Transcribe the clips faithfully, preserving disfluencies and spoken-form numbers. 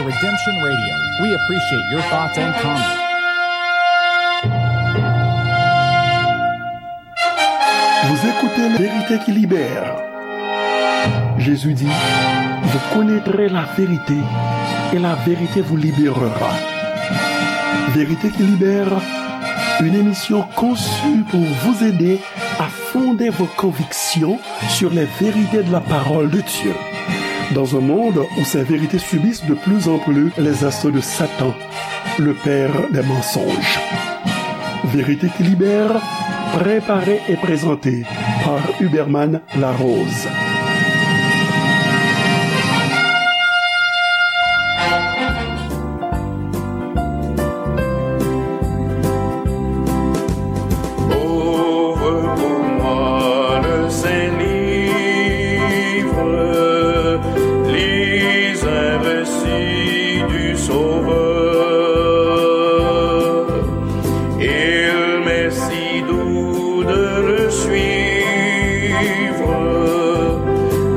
Redemption Radio. We appreciate your thoughts and comments. Vous écoutez La Vérité qui libère. Jésus dit, vous connaîtrez la vérité et la vérité vous libérera. Vérité qui libère, une émission conçue pour vous aider à fonder vos convictions sur les vérités de la parole de Dieu. Dans un monde où ces vérités subissent de plus en plus les assauts de Satan, le père des mensonges. Vérité qui libère, préparée et présentée par Huberman Larose. Ouvre pour moi le saint livre, lis un récit du Sauveur. Il m'est si doux de le suivre,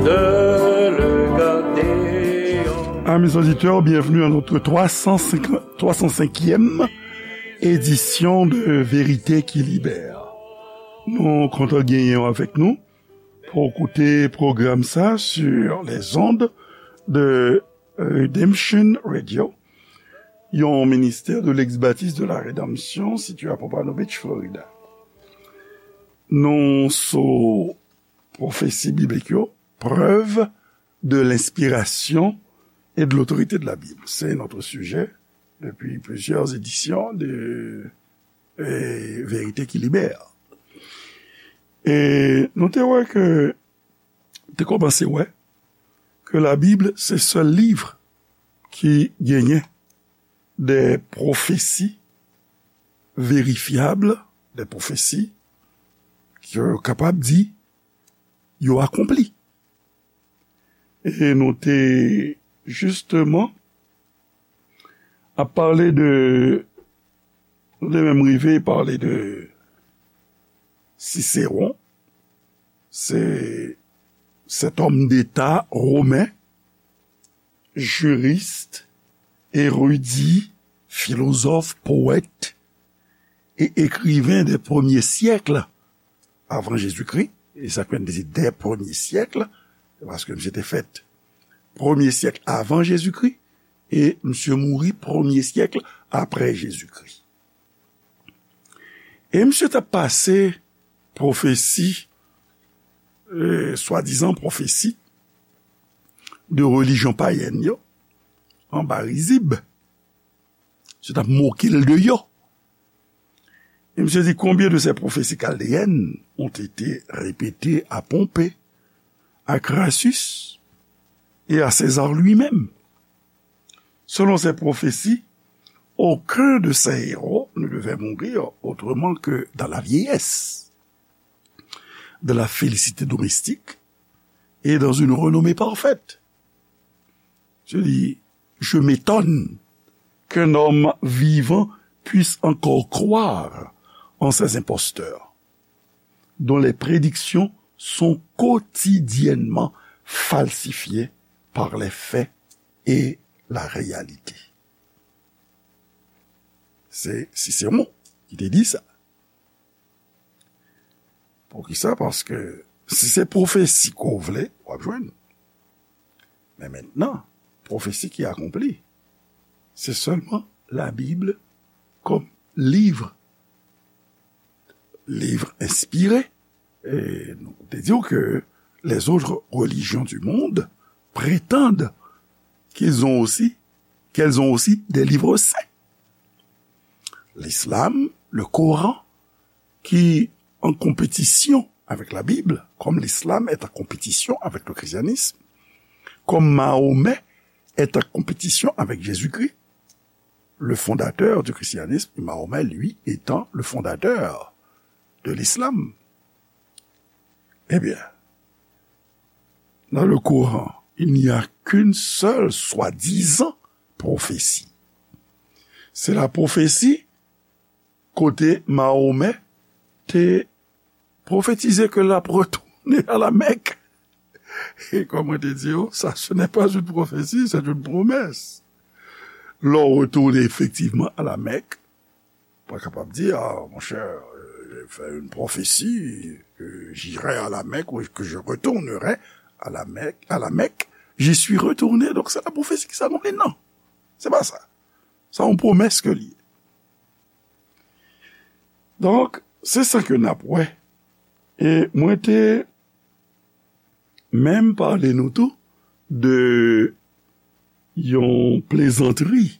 de le garder en Amis auditeurs, bienvenue à notre trois cent cinq, trois cent cinquième édition de Vérité qui Libère. Nou kontan genyen w avèk nou pou w koute pwogram sa sur les ondes de Redemption Radio, yon ministè de l'ex-baptiste de la Rédemption situé à Pompano Beach, Florida. Nou sou pwofesi biblik yo, preuve de l'inspiration et de l'autorité de la Bible. C'est notre sujet depuis plusieurs éditions de eh, Vérité qui libère. E nou te wè ke, te kòmanse wè ke Labib se sèl liv ki genyen de pwofesi verifyab, de pwofesi ke yo kapab di yo akonpli. E nou te jisteman ap pale de, nou te menm rive pale de Cicéron, se, cet homme d'État romain, juriste, érudit, philosophe, poète et écrivain des premiers siècles avant Jésus-Christ, e sa k fè n di dè premye syèk, se paske misye te fèt premye syèk avan Jezikri, e misye mouri premye syèk apre Jezikri. E misye t ap pase pwofesi, e, swadizan pwofesi de relijyon payèn yo anba rizib. Misye t ap moke l de yo. E misye di, combien de ces prophéties chaldéennes ont été répétées à Pompée, à Crassus et à César lui-même? Selon ces prophéties, aucun de ces héros ne devait mourir autrement que dans la vieillesse, dans la félicité domestique et dans une renommée parfaite. Je dis, je m'étonne qu'un homme vivant puisse encore croire en ces imposteurs, dont les prédictions sont quotidiennement falsifiées par les faits et la réalité. Se Sisewon ki te di sa. Poukisa? Paske si se pwofesi ke w vle, w ap jwenn. Men mentnan, pwofesi ki akonpli, se sèlman Labib kòm liv, liv enspire. E nou te di w ke les autres religions du monde prétendent qu'ils ont aussi, qu'elles ont aussi des livres saints. L'islam, le Coran, qui en compétition avec la Bible, comme l'islam est en compétition avec le christianisme, comme Mahomet est en compétition avec Jésus-Christ, le fondateur du christianisme, et Mahomet, lui, étant le fondateur de l'islam. Eh bien, dans le Coran, il n'y a qu'une seule soi-disant prophétie. C'est la prophétie kote Mahomet te pwofetize ke l ap retounen a la Mèk. E kòm mwen te di w, sa, ce n'est pas une prophétie, c'est une promesse. lè w retounen efektivman a la Mèk, pa kapab di, ah, mon cher, euh, j'ai fait une prophétie, que j'irai à la Mecque ou que je retournerai à la Mecque, à la Mecque, j'y suis retourné. Donk, se la pwofesi ki sa non, li, non. Se pa sa. Sa yon pwomès ke li ye. Donk, se sa ke n ap wè. E mwen te menm pale nou tou de yon plezantri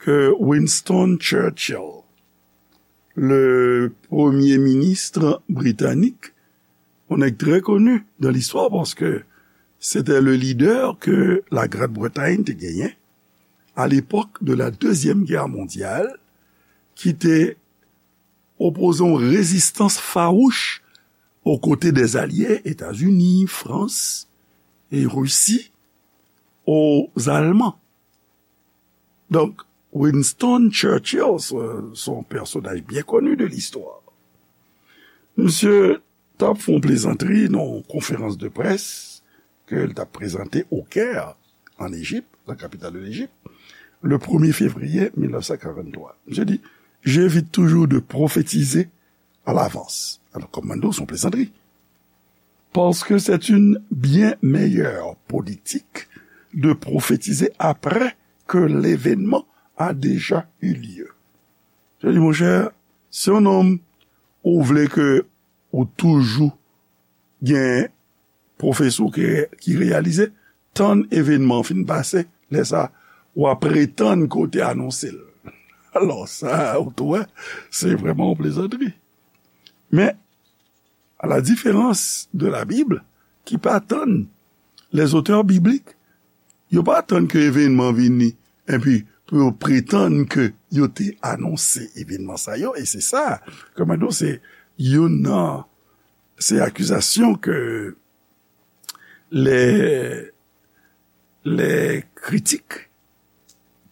ke Winston Churchill, le premye minis britanik, yon nèg trè koni dan listwa paske se te le lidè ke la Grande Bretagne te genyen à l'époque de la Deuxième Guerre mondiale, ki te opoze yon rezistans fawouch aux côtés des Alliés, États-Unis, France et Russie, aux Allemands. Donk, Winston Churchill, se, se yon pèsonaj byen koni de listwa. Misye t ap fè yon plezantri nan yon konferans de près ke l t ap prezante au Caire, en Égypte, la capitale de l'Égypte, le premier février mille neuf cent quarante-trois. Misye di, j'évite toujours de prophétiser à l'avance. Alors, comme Mando, c'est une plaisanterie. Parce que c'est une bien meilleure politique de prophétiser après que l'événement a déjà eu lieu. Je dis, mon cher, si yon nonm ou vle ke ou toujou gen pwofesi ki reyalize, tann evenman an fin pase, lè sa, w ap pretann ke w te anonse l. Alò, sa, ou tou wè, se vrèman yon plezantri. Men, à la différence de la Bible, ki pa tann, les auteurs bibliques, yo pa tann ke evenman vini, epi pou yo pretann ke yo te anonse evenman sa yo, e se sa, kòman di w, se youn nan, se akizasyon ke les, les critiques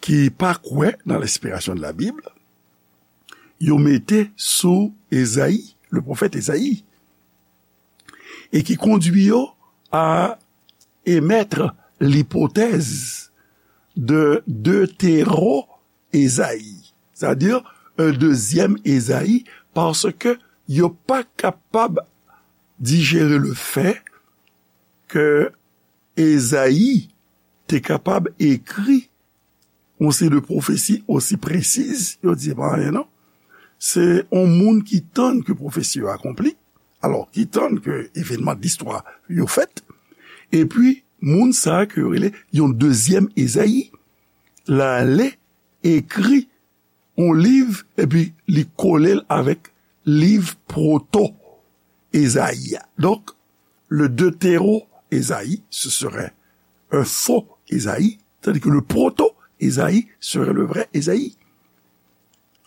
ki pa kwè nan l'inspiration de la Bible, yo mete sou Ezayi, le pwofèt Ezayi, e ki kondwi yo à émettre l'hypothèse de deutéro-Ezayi, c'est-à-dire un deuxième Ezayi, paske yo pa kapab dijere le fait que Ezayi te kapab ekri yon seri de pwofesi osi presiz, yo di, "E pa anyen non." Se yon moun ki tann ke pwofesi yo akonpli, alò, ki tann ke evenman de listwa yo fèt, epi moun sa a ke yo rele yon dezyèm Ezayi, l ale ekri yon liv, epi li kole l avèk liv pwoto Ezayi a. Donk, le deutéro-Ezayi, ce serait un faux Ezayi, tandis que le proto-Ezayi serait le vrai Ezayi.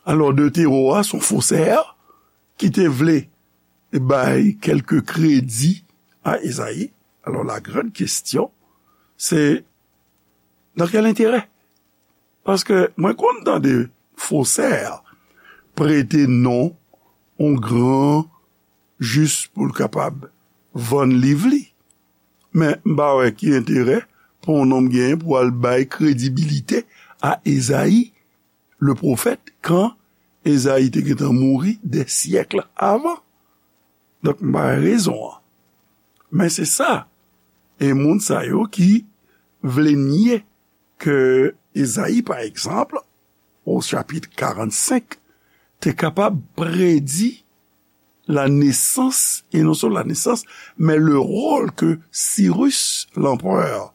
Alò, deutéro a, se yon fosè ki te vle bay kèlke kredi a Ezayi. Alò, la grande question, c'est dans quel intérêt? Paske mwen konn tande fosè prete non yon gran jis pou l kapab vann liv li. Men m pa wè ki enterè pou yon nonm genyen pou al bay kredibilite a Ezayi, le pwofèt, kan Ezayi te gentan mouri des siècles avant. Donk, m pa wè rezon an. Men se sa. E moun sa yo ki vle nye ke Ezayi, pa egzanp, au chapitre quarante-cinq, te kapab predi la nesans, e non sèlman la nesans, men le rôle que Cyrus, l'empereur,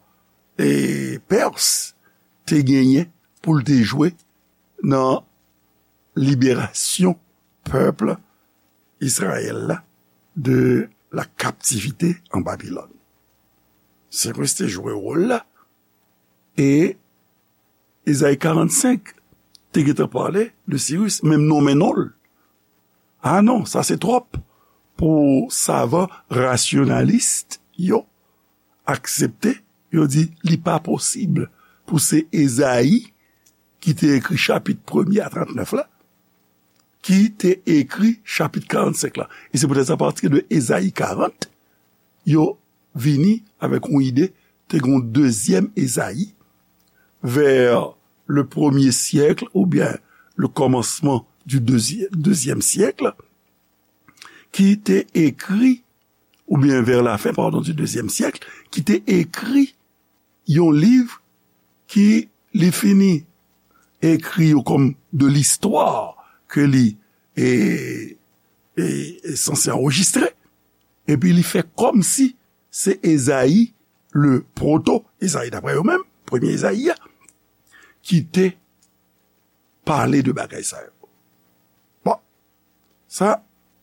e Pèrs, te genyen pou l te jwe nan liberasyon pèp Izrayèl la de la captivité en Babylone. Sirus te jwe wòl la, e Ezayi karannsenk te gentan pale de Sirus, menm nonmen non l. A non, sa se twòp pou savan rasyonalis yo aksepte, yo di li pa posib pou se Ezayi ki te ekri chapit premye a trannèf la, ki te ekri chapit karannsenk la. E se poutèt sa, apati de Ezayi karant, yo vini avèk yon ide, te gen yon dezyèm Ezayi, vers le premier siècle, oubyen le commencement du deuxième, deuxième siècle, ki te ekri, oubyen vers la fin, pardon, du deuxième siècle, ki te ekri yon liv ki li fini ekri yo kòm de l'histoire ke li e, e, e sanse anrejistre, epi li fè kòmsi se Ezayi, le proto Ezayi, daprè yo menm, premye Ezayi a, ki te pale de bagay sa yo. Bon, sa,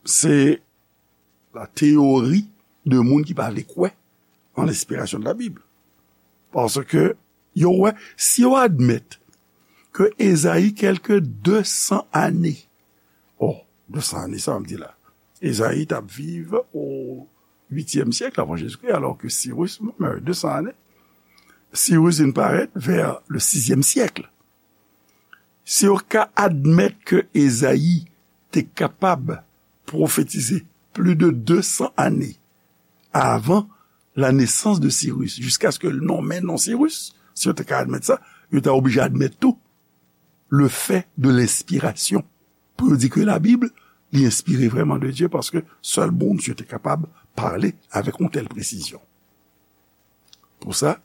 se la teyori de moun ki pa vle kwè an lenspirasyon de la Bib. Paske yo wè, si yo admèt ke Ezayi, kèlke de san ane, oh, de san ane, sa m di la, Ezayi t ap viv o uityèm syèk avan Jezikri, alò ke Sirus, mwen, de san ane, Sirus vin parèt vè le sizyèm syèk. Si yo ka admèt ke Ezayi te kapab pwofetize plis de de san ane avan la nesans de Sirus, jiskaske l nonmen non Sirus, si yo te ka admèt sa, yo ta oblije admèt tou le fait de l'inspiration. Pou yo di ke Labib, li enspire vrèman de Dye, paske sèl Bondye te kapab pale avèk yon tèl presizyon. Pou sa,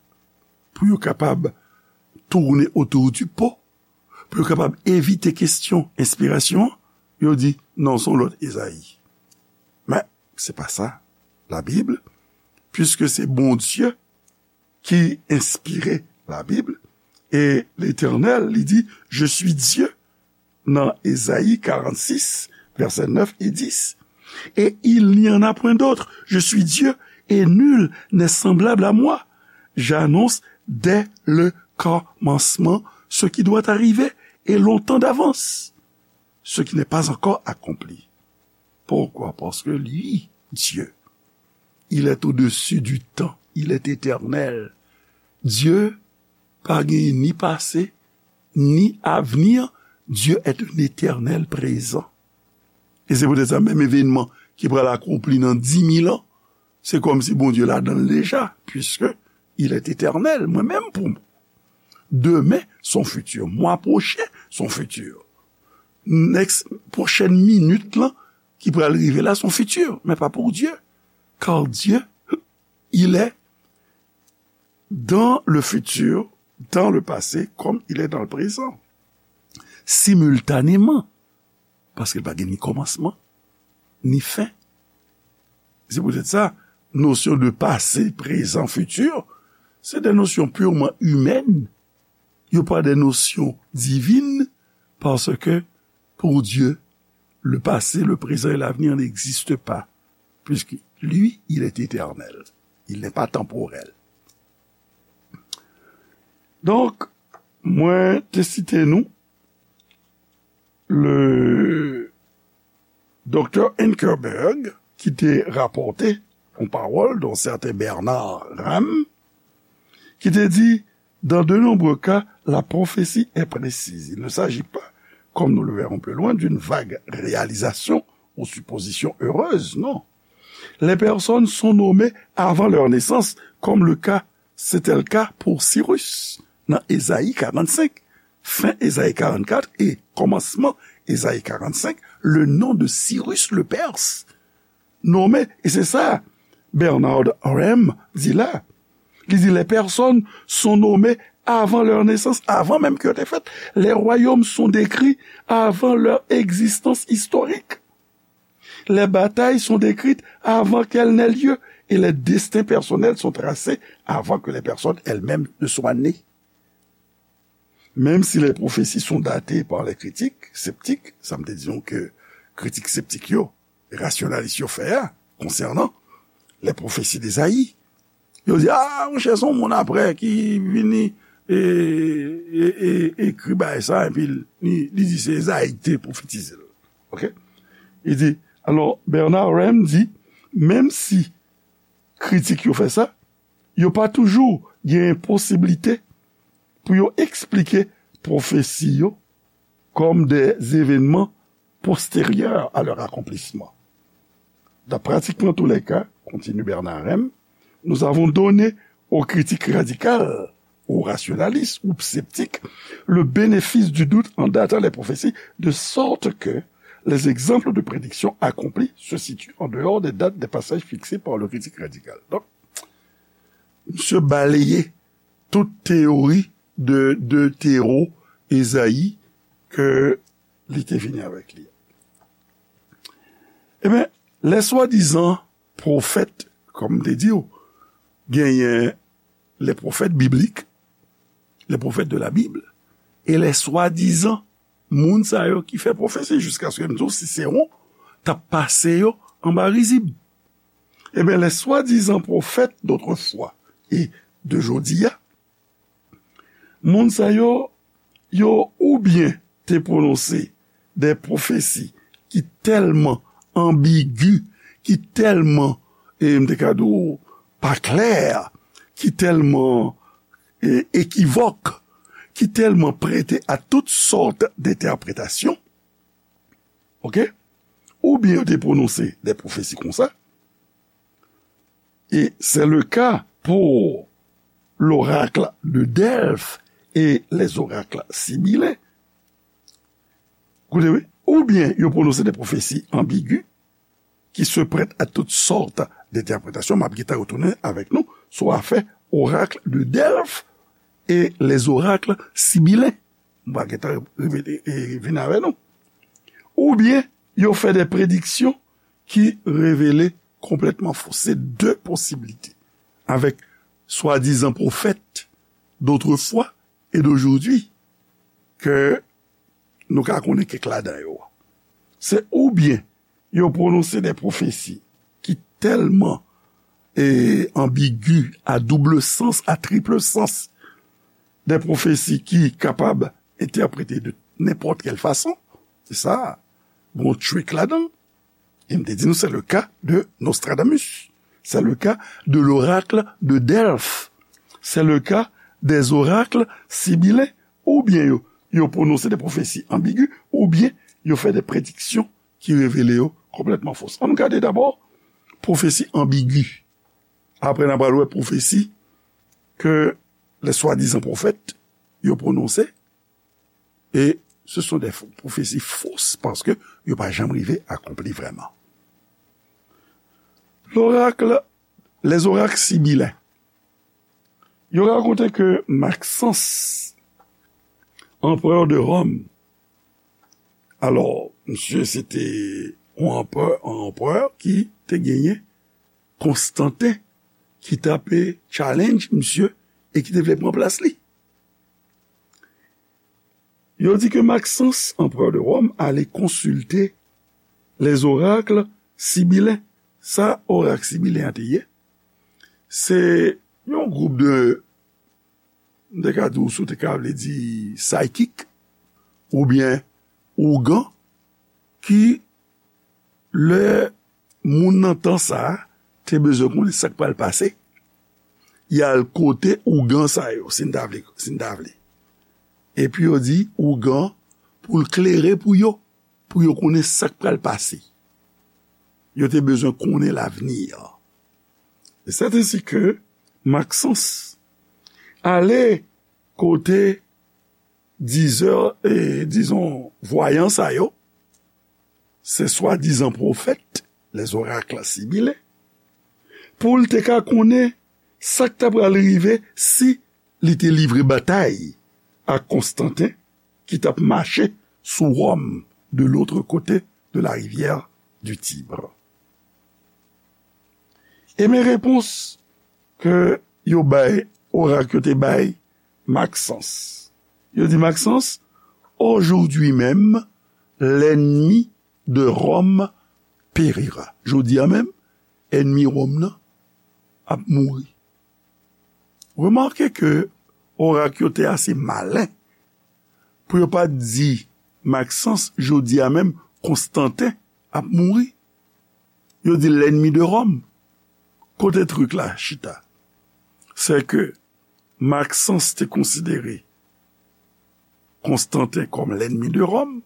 pou yo kapab tourner autour du pot, pou yo kapab evite kesyon enspirasyon an, yo di, non, se yon lòt Ezayi. Men, se pa sa, Labib, puiske se Bondye ki enspire Labib, e Letènèl, li di, je suis Dieu, nan Ezayi karannsis, vèsè nèf e dis, et il n'y en a point d'autre, je suis Dieu, et nul n'est semblable à moi, j'annonce dès le commencement ce qui doit arriver, et longtemps d'avance ce qui n'est pas encore accompli. Pourquoi? Parce que lui, Dieu, il est au-dessus du temps, il est éternel. Dye pa gen ni pase, ni avenir. Dieu est un éternel présent. E se poutèt sa, menm evènman ki pral akonpli nan di mil an, se kòmsi Bondye ladan l deja, puisque il est éternel. Mwen menm, pou mwen, demen, se yon fiti. Mwa pwochen, se yon fiti. Next, pwochèn minit lan ki pral rive la, se yon fiti, men pa pou Dye. Car Dieu, il est dans le futur, dans le passé, comme il est dans le présent. Simultanément, paske l pa gen ni kòmansman, ni fen. Se poutèt sa, nosyon de pase, prezan, fiti, se de nosyon purman imèn. Yo pa de nosyon divin, paske pou Dye, le passé, le présent et l'avenir n'existent pas, puisque lui, il est éternel. Il n'est pas temporel. Donk, mwen te site nou le doktè Ankerberg, ki te rapòte yon pawòl d'un certain Bernard Ramm, ki te di, dans de nombreux cas, la prophétie est précise. Il ne s'agit pas, comme nous le verrons plus loin, d'une vague réalisation ou supposition heureuse, non. Les personnes sont nommées avant leur naissance, comme le cas, c'était le cas pour Cyrus, dans Ésaïe quarante-cinq. Fin Ésaïe quarante-quatre et commencement Ésaïe quarante-cinq, le nom de Cyrus le Perse nommé, e se sa Bernard Ramm di la. Li di, les personnes sont nommées avant leur naissance, avan menm ke yo te fèt. Les royaumes sont décrits avant leur existence historique. Les batailles sont décrites avant qu'elles n'aient lieu et les destins personnels sont tracés avant que les personnes elles-mêmes ne soient nées. Même si les prophéties sont datées par les critiques sceptiques, sa m te di nou ke kritik septik yo, rasyonalis yo fè a, konsènan les prophéties d'Ésaïe, yo di, ah, monchè, se yon moun apre ki vini e, e, e, ekri bagay sa, epi li, li di se Ezayi ki te pwofetize l. Ok? Li di, alò, Bernard Ramm di, menm si kritik yo fè sa, yo pa toujou gen posiblite pou yo eksplike pwofesi yo comme des événements postérieurs à leur accomplissement. Dans pratiquement tous les cas, continue Bernard Ramm, nous avons donné aux critiques radicales ou rationalistes ou sceptiques, le bénéfice du doute en datant les prophéties, de sorte que les exemples de prédiction accomplie se situent en dehors des dates des passages fixés par le critique radical. Donk, misye baleye tout teyori de, de tero Ezayi ke li te vini avèk li. Ebyen, lè swadizan pwofèt, kòm m te di w, genyen les prophètes bibliques, les prophètes de la Bible, e les swadizan moun sa yo ki fè pwofesi, jiskaske m di w Sisewon t ap pase yo anba rizib. Ebyen, les swadizan pwofèt dotrefois e de jodi a, moun sa yo, yo oubyen te pwononse de pwofesi ki tèlman anbigi, ki tèlman, e m te ka di w, pa klè, ki tèlman, e, ekivòk, ki tèlman prete a tout sòt de entèpretasyon, oke? Oubyen yo te pwononse de pwofesi konsa, et c'est le cas pour l'oracle de Delphes et les oracles sibyllins. Koute, wi. Oubyen yo pwononse de pwofesi anbigi ki se prèt a tout sòt de entèpretasyon. M ap gentan retounen avèk nou sou afè orakl de Delphes et les oracles sibyllins. M va gentan rive, e, vin avè nou. Oubyen yo fè de prediksyon ki revele konplètman fo. Se de posiblite. Avèk swadizan pwofèt dotrefois e dojodi ke nou ka konnen kèk ladan yo. Se oubyen yo pwononse de pwofesi ki tèlman, e, anbigi, a double sens, a triple sens, de pwofesi ki kapab entèprete de nenpòt kèl fason. Se sa, gon trick ladan. E m te di nou, c'est le cas de Nostradamus. C'est le cas de l'oracle de Delphes. C'est le cas des oracles sibyllins. Oubyen yo, yo pwononse de pwofesi anbigi, oubyen yo fè de prediksyon ki revele yo konplètman fo. Ann gade dabò pwofesi anbigi. Apre, n a pral wè pwofesi ke les swadizan pwofèt yo pwononse. E se sont des fo-, pwofesi fo, paske yo pa janm rive akonpli vrèman. L'oracle, les oracles sibyllins. Yo rakonte ke Maxence, empereur de Rome, alò, misye se te yon empereur, yon empereur ki te genyen Konstantin, ki t ape challenge misye e ki te vle pran plas li. Yo di ke Maxence, empereur de Rome, ale konsilte les oracles sibyllins. Sa orak sibylen an te ye, se yon gwoup de, m te ka di w, si w te ka vle di psychic, oubyen ougan, ki lè moun nan tan sa a te bezwen konnen sa k pral pase, y al kote ougan sa yo, si n ta vle, si n ta vle. Epi yo di ougan pou l klere pou yo, pou yo konnen sa k pral pase. Yo te bezwen konnen lavni an. E sèt ensi ke Maxence ale kote dizè, e, dizon, vwayan sa yo, se swadizan pwofèt, les oracles sibyllins, pou l te ka konnen sa k ta pral rive si li te livre batay ak Konstantin ki t ap mache sou Wòm de l'autre côté de la rivière du Tibre. E men repons ke yo bay, orak yo te bay Maxence. Yo di Maxence, aujourd'hui même, l'ennemi de Rome périra. Jodi a menm, ènmi Wòm nan ap mouri. Remake ke orak yo te ase malen pou yo pa t di Maxence, jodi a menm, Konstantin ap mouri. Yo di l'ennemi de Rome. Kote trik la chita? Se ke Maxence te konsidere Konstantin kòm l'ennemi de Rome,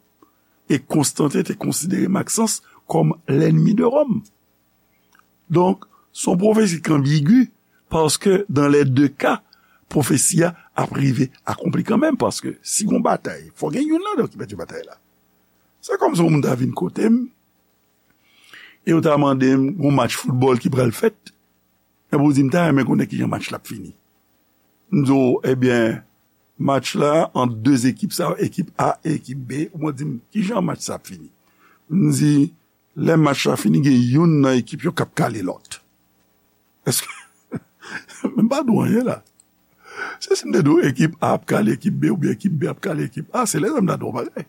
e Konstantin te konsidere Maxence kòm l'ennemi de Rome. Donk, se yon pwofesi ki anbigi, paske dans les deux cas, pwofesi a ap rive akonpli kanmenm, paske si gon batay, fò gen youn ladan ki pèdi batay la. Se kòmsi yon moun ta vin kote m, e yo ta mande m, gon match foutbòl ki pral fèt, epi w di m ta renmen konnen kijan match la ap fini. M di w, ebyen, match la ant de ekip sa, ekip A e ekip B, ou mwen di m, kijan match sa ap fini? M di, lè match la fini, gen youn nan ekip yo k ap kale lòt. Èske, m pa di w anyen la. Se si m te di w ekip A ap kale ekip B oubyen ekip B ap kale ekip A, se lè sa m ta di w bagay.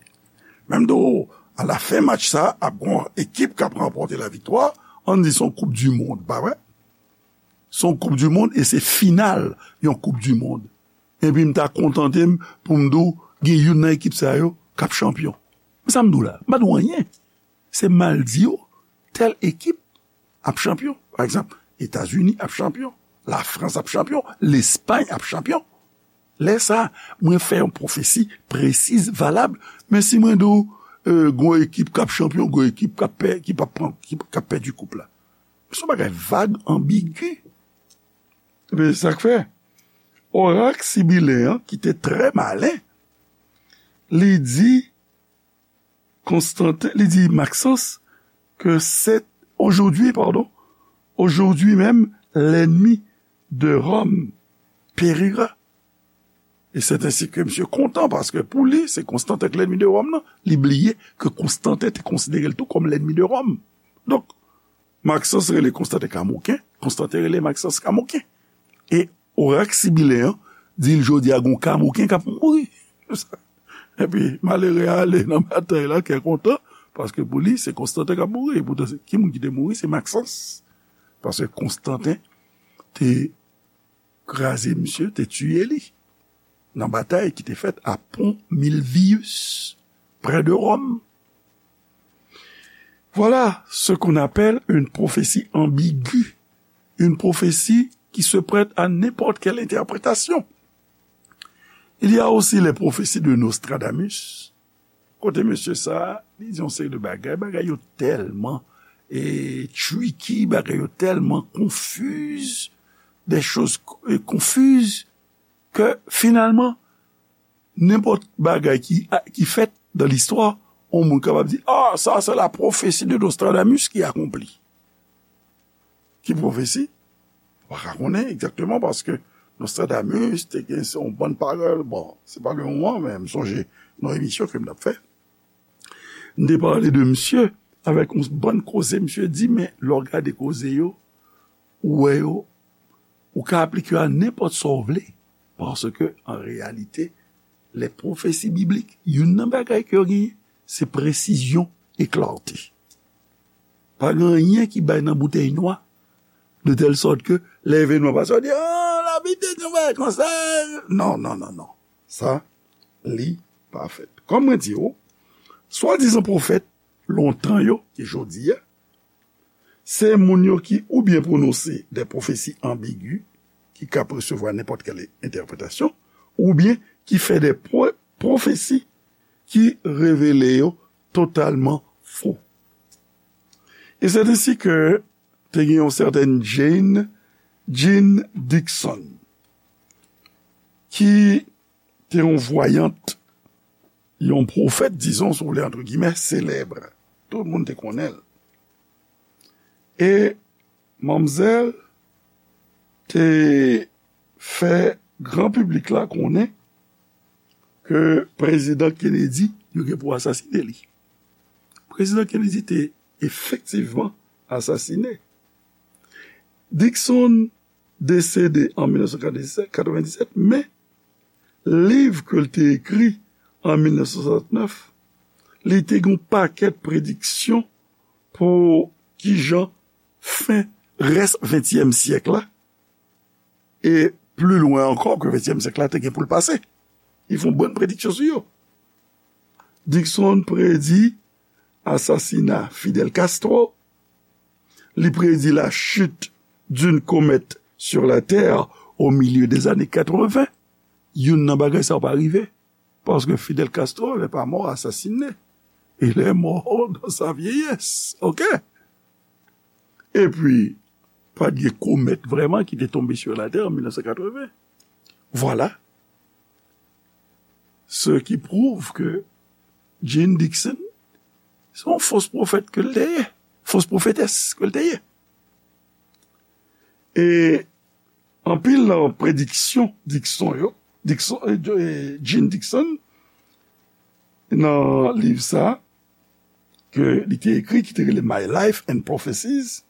Men m di w, alafen match sa, ap gon ekip k ap ranpòte laviktwa, ann di se yon koup di mond, pa vre? Se yon koup di mond e se final yon koup di mond. Epi m ta kontante m pou m di w gen youn nan ekip sa yo k ap chanpyon. Men sa m di w la, m pa di w anyen. Se m al di w, tèl ekip ap chanpyon. Pa egzanp, Etazini ap chanpyon, Lafrans ap chanpyon, Lespay ap chanpyon. Lè sa, mwen fè yon pwofesi presiz, valab. Men si mwen di w, e, gon ekip k ap chanpyon, gon ekip k ap pè-, ki p ap pran, ki, k ap pèdi koup la. Se yon bagay vag, anbigi. Men se sa k fè. Orak sibilen an, ki te trè malen, li di Konstantin, li di Maxence que c'est aujourd'hui, pardon, aujourd'hui même, l'ennemi de Rome périra. Et c'est ainsi que misye kontan, paske pou li, se Konstantin k lènmi de Wòm nan. Li bliye ke Konstantin te konsidere l tou kòm lènmi de Wòm. Donk, Maxence rele Konstantin Kamoken, Konstantin rele Maxence Kamoken. E orak sibilen an di l jodi a gon Kamoken k ap mouri. Epi malere a ale nan batay la, kè kontan, paske pou li, se Konstantin k ap mouri. Poutan, se, ki moun ki te mouri? Se Maxence. Paske Konstantin te kraze misye, te tiye li nan batay ki te fèt a Pont Milvius, près de Rome. Voilà ce qu'on appelle une prophétie ambiguë, une prophétie qui se prête à n'importe quelle interprétation. Il y a aussi les prophéties de Nostradamus, kote mesye sa, li di yon seri de bagay, bagay yo tèlman, e, tricky, bagay yo tèlman konfiz, des choses, e, confuses, ke finalman, nenpòt bagay ki, ki fèt dan listwa, yon moun kapab di, ah, ça, c'est la prophétie de Nostradamus qui accomplit. Ki pwofesi? Pa ka konnen egzakteman, paske Nostradamus te gen se yon bann pawòl. Bon, se pa le moman, men m sonje nan emisyon ke m t ap fè, m te pale de misye avèk yon bann koze misye di, men lè w gade koze yo, ou wè yo, ou ka aplike yo a nenpòt sa w vle, paske, an reyalite, les prophéties bibliques, youn nan bagay ke yo genyen, se presizyon e klarte. Pa gen anyen ki bay nan boutèy nwa, de tèl sòt ke lè evènman pase, w di, ah, Labib te di yon bagay konsa. Non, non, non, non. Sa, li pa fèt. Kòm mwen di w, swadizan pwofèt lontan yo, ki jodi a, se moun yo ki oubyen pwononse de pwofesi anbigi, ki ka resevwa nenpòt kèl entèpretasyon, oubyen ki fè de pwo-, pwofesi ki revele yo totalman fo. E se ensi ke te gen yon sètèn Jane, Jean Dixon, ki te yon vwayant, yon pwofèt, dizon, si w vle, entre guillemets, selèb. Tout moun te konnen l. E manmzèl te fè gran piblik la konnen ke prezidan Kennedy, yo gen pou asasinen li. Prezidan Kennedy te efektivman asasinen. Dixon desede an mil nèf san katrevendisèt, men liv ke l te ekri an mil nèf san swasantnèf, li te gen yon pakèt prediksyon pou kijan fen rès ventyèm syèk la, e pli lwen ankò ke ventyèm syèk la te gen pou l pase. Li fè yon bann prediksyon sou yo. Dixon predi asasina Fidel Castro, li predi la chute d'une comète sur la Terre au milieu des années quatre-vingts. Youn nan bagay sa yo pa rive, paske Fidel Castro n'est pas mort assassiné. Il est mort dans sa vieillesse. OK? Epi, pa t gen komèt vrèman ki te tonbe sur la Terre en mil nèf san katreven. Vwala. Ce qui prouve que Jeane Dixon se yon fos pwofèt ke l te ye, fos pwofetès ke l te ye. E anpil nan prediksyon Dixon yo, Dixon, eh, Jeane Dixon, nan liv sa, ke li te ekri, ki te rele My Life and Prophecies,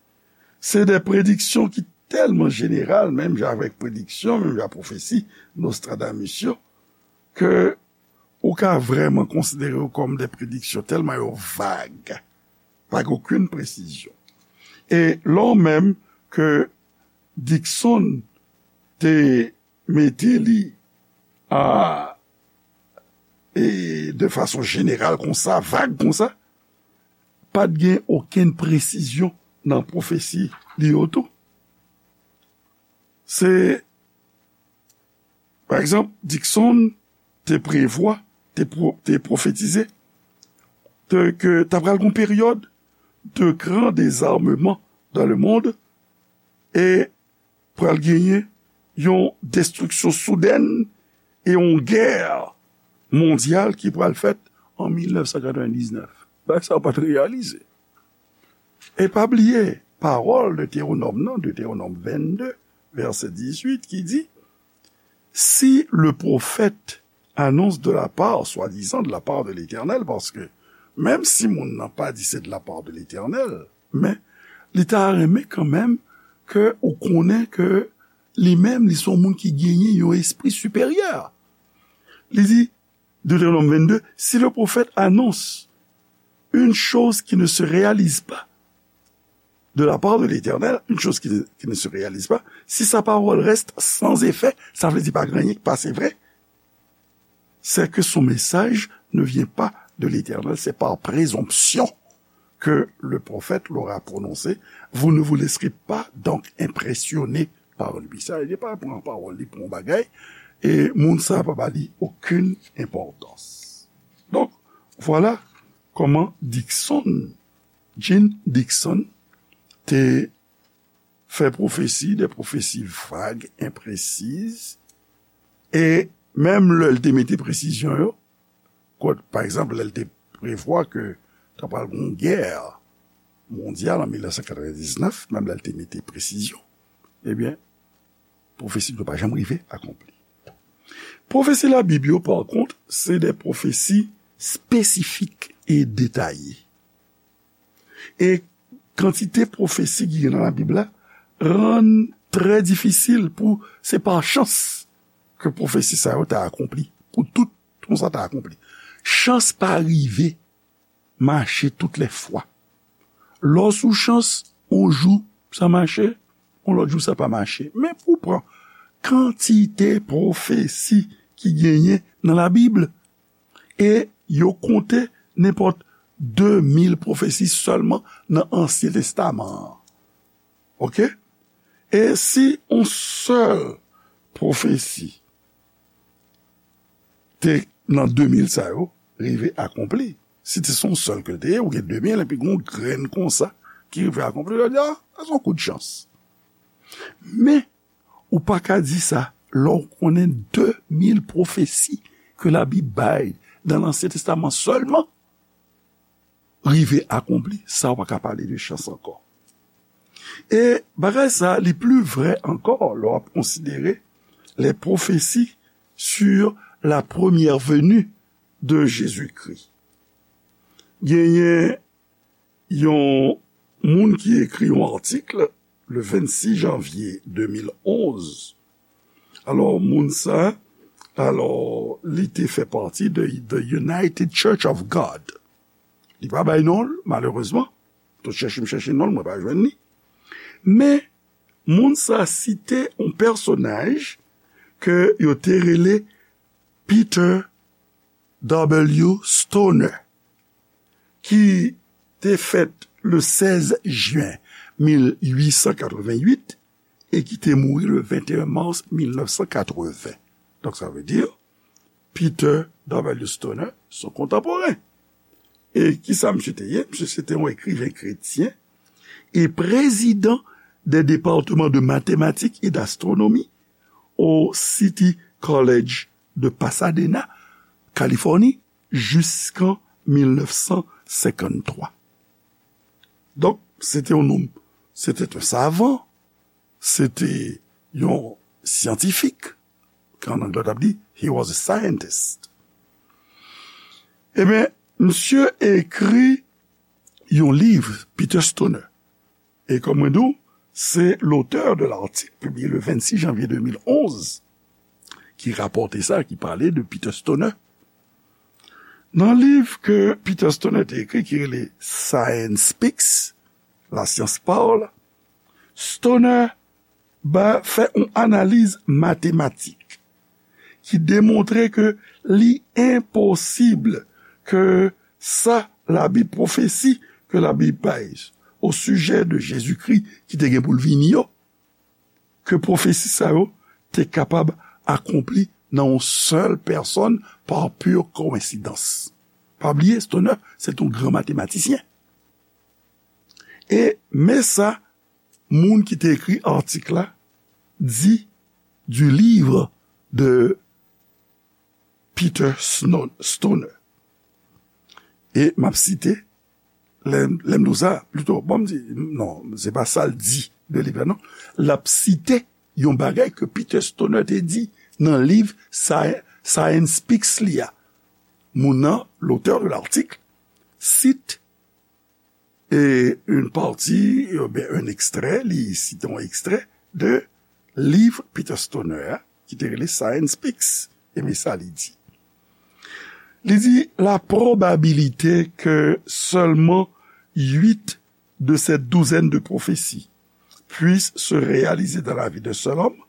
se de prediksyon ki tèlman jeneral, menm jan avèk prediksyon, menm jan pwofesi Nostradamus yo, ke ou ka vrèman konsidere yo kòm de prediksyon tèlman yo vag, pa gen okenn presizyon. E lè w menm ke Dixon te mete li a, e de fason jeneral konsa, vag konsa, pa t gen okenn presizyon nan pwofesi li yo tou. Se, pa egzanp, Dixon te prevwa, te, pwo, te pwofetize de, ke ta pral gon peryòd de gran dezarmeman dans le monde e pral genyen yon destriksyon soudèn e yon gè mondyal ki pral fèt an mil nèf san katrevendiznèf. Bagay sa yo pa t reyalize. E pa bliye pawòl Detewonòm nan, Detewonòm vennde, vèsè dizuit, ki di, si le prophète annonce de la part, swadizan de la part de l'Éternel, paske menm si moun nan pa di se de la part de l'Éternel, men li ta renmen kanmenm ke ou konnen ke li menm, li se yon moun ki genyen yon espri siperyè. Li di, Deutéronome vingt-deux, si le prophète annonce une chose qui ne se réalise pas de la part de l'Éternel, une chose qui, qui ne se réalise pas, si sa pawòl reste sans effet, sa vle di pa gen anyen ki pase vre, c'est que son message ne vient pas de l'Éternel, c'est par présomption que le prophète l'aura prononcé. Vous ne vous laisserez pas donc impressionner par lui. Sa vle di pa pran pawòl li pou yon bagay, e moun sa pa ba li okenn enpòtans. Donk, vwala kòman Dixon, Jeane Dixon, te fè pwofesi, de pwofesi vag, enpresiz, e menm lè l te mete presizyon yo, kot, pa egzanp, lè l te prevwa ke ta pral gen yon gè mondyal an mil nèf san katrevendiznèf, menm lè l te mete presizyon, ebyen, pwofesi yo pa janm rive akonpli. Pwofesi Labib yo, pa kont, se de pwofesi espesifik e detaye. E kantite pwofesi ki gen nan Labib la rann trè difisil pou se pa chans ke pwofesi sa yo ta akonpli, pou tout konsa ta akonpli. Chans pa rive mache tout lè fwa. Lè w sou chans, yon jou sa mache, yon lòt jou sa pa mache. Men pou w pran kantite pwofesi ki genyen nan Labib, e yo konte nenpòt de mil pwofesi sèlman nan Ansyen Testaman an. Oke? E si yon sèl pwofesi te nan de mil sa yo rive akonpli, si te se yon sèl ke l te ye, ou gen de mil, epi gen yon grenn konsa ki rive akonpli, yo di, a, sa se yon kout chans. Men, ou pa ka di sa lè w konnen de mil pwofesi ke Labib bay nan Ansyen Testaman sèlman rive akonpli, sa w pa ka pale de chans ankò. E bagay sa, li pli vrè ankò lè w ap konsidere les prophéties sur la première venue de Jésus-Christ. Genyen yon moun ki ekri yon atik le vennsis janvye de mil onz. Alò, moun sa, alò, li te fè pati de The United Church of God. Li pa bay non l, malerezman. Tout chèche m chèche non l, mwen pa jwenn li. Men, moun sa site yon pèsonaj ke yo te rele Peter W. Stoner, ki te fèt le sèz jen mil uit san katrevenn uit e ki te mouri le venteyen mas mil nèf san katrevenn. Donk, sa vle di, Peter W. Stoner, se yon kontanporen. E kisa misye te ye? Misye se te yon ekriven kretyen e prezidan de depatman de matematik e d'astwonomi au City College de Pasadena, Kalifòni jiskan mil nèf san senkann twa. Donk, se te yon nonm, se te yon savan, se te yon syantifik, ke an anglè w t ap di, he was a scientist. Ebyen, misye ekri yon liv, Peter Stoner. E kòm mwen di w, se l'auteur de l'article publié le vingt-six janvier deux mille onze ki rapòte sa, ki pale de Peter Stoner. Nan liv ke Peter Stoner te ekri, ki rele Science Speaks, La Science Parle, Stoner ba, fè yon analiz matematik ki demontre ke li enposib ke sa Labib, pwofesi ke Labib bay o sijè de Jezikri ki te gen pou l vini yo, ke pwofesi sa yo te kapab akonpli nan yon sèl pèsòn pa pur kowensidans. Pa bliye, Stoner, se t yon gran matematisyen. E men sa moun ki te ekri atik la di du livre de Peter Sno-, Stoner. E m ap site, lè, lè m di w sa, plito, bon, m di, non, se pa sa l di de liv la, non. L ap site yon bagay ke Peter Stoner te di nan liv Sci-, Science Speaks li a. Moun nan, l'auteur de l'article, cite e une partie, oubyen un extrait, li site yon ekstrè de liv Peter Stoner a, ki te rele Science Speaks. E men sa li di. Li di, la probabilité que seulement huit de cette douzaine de prophéties puissent se réaliser dans la vie d'un seul homme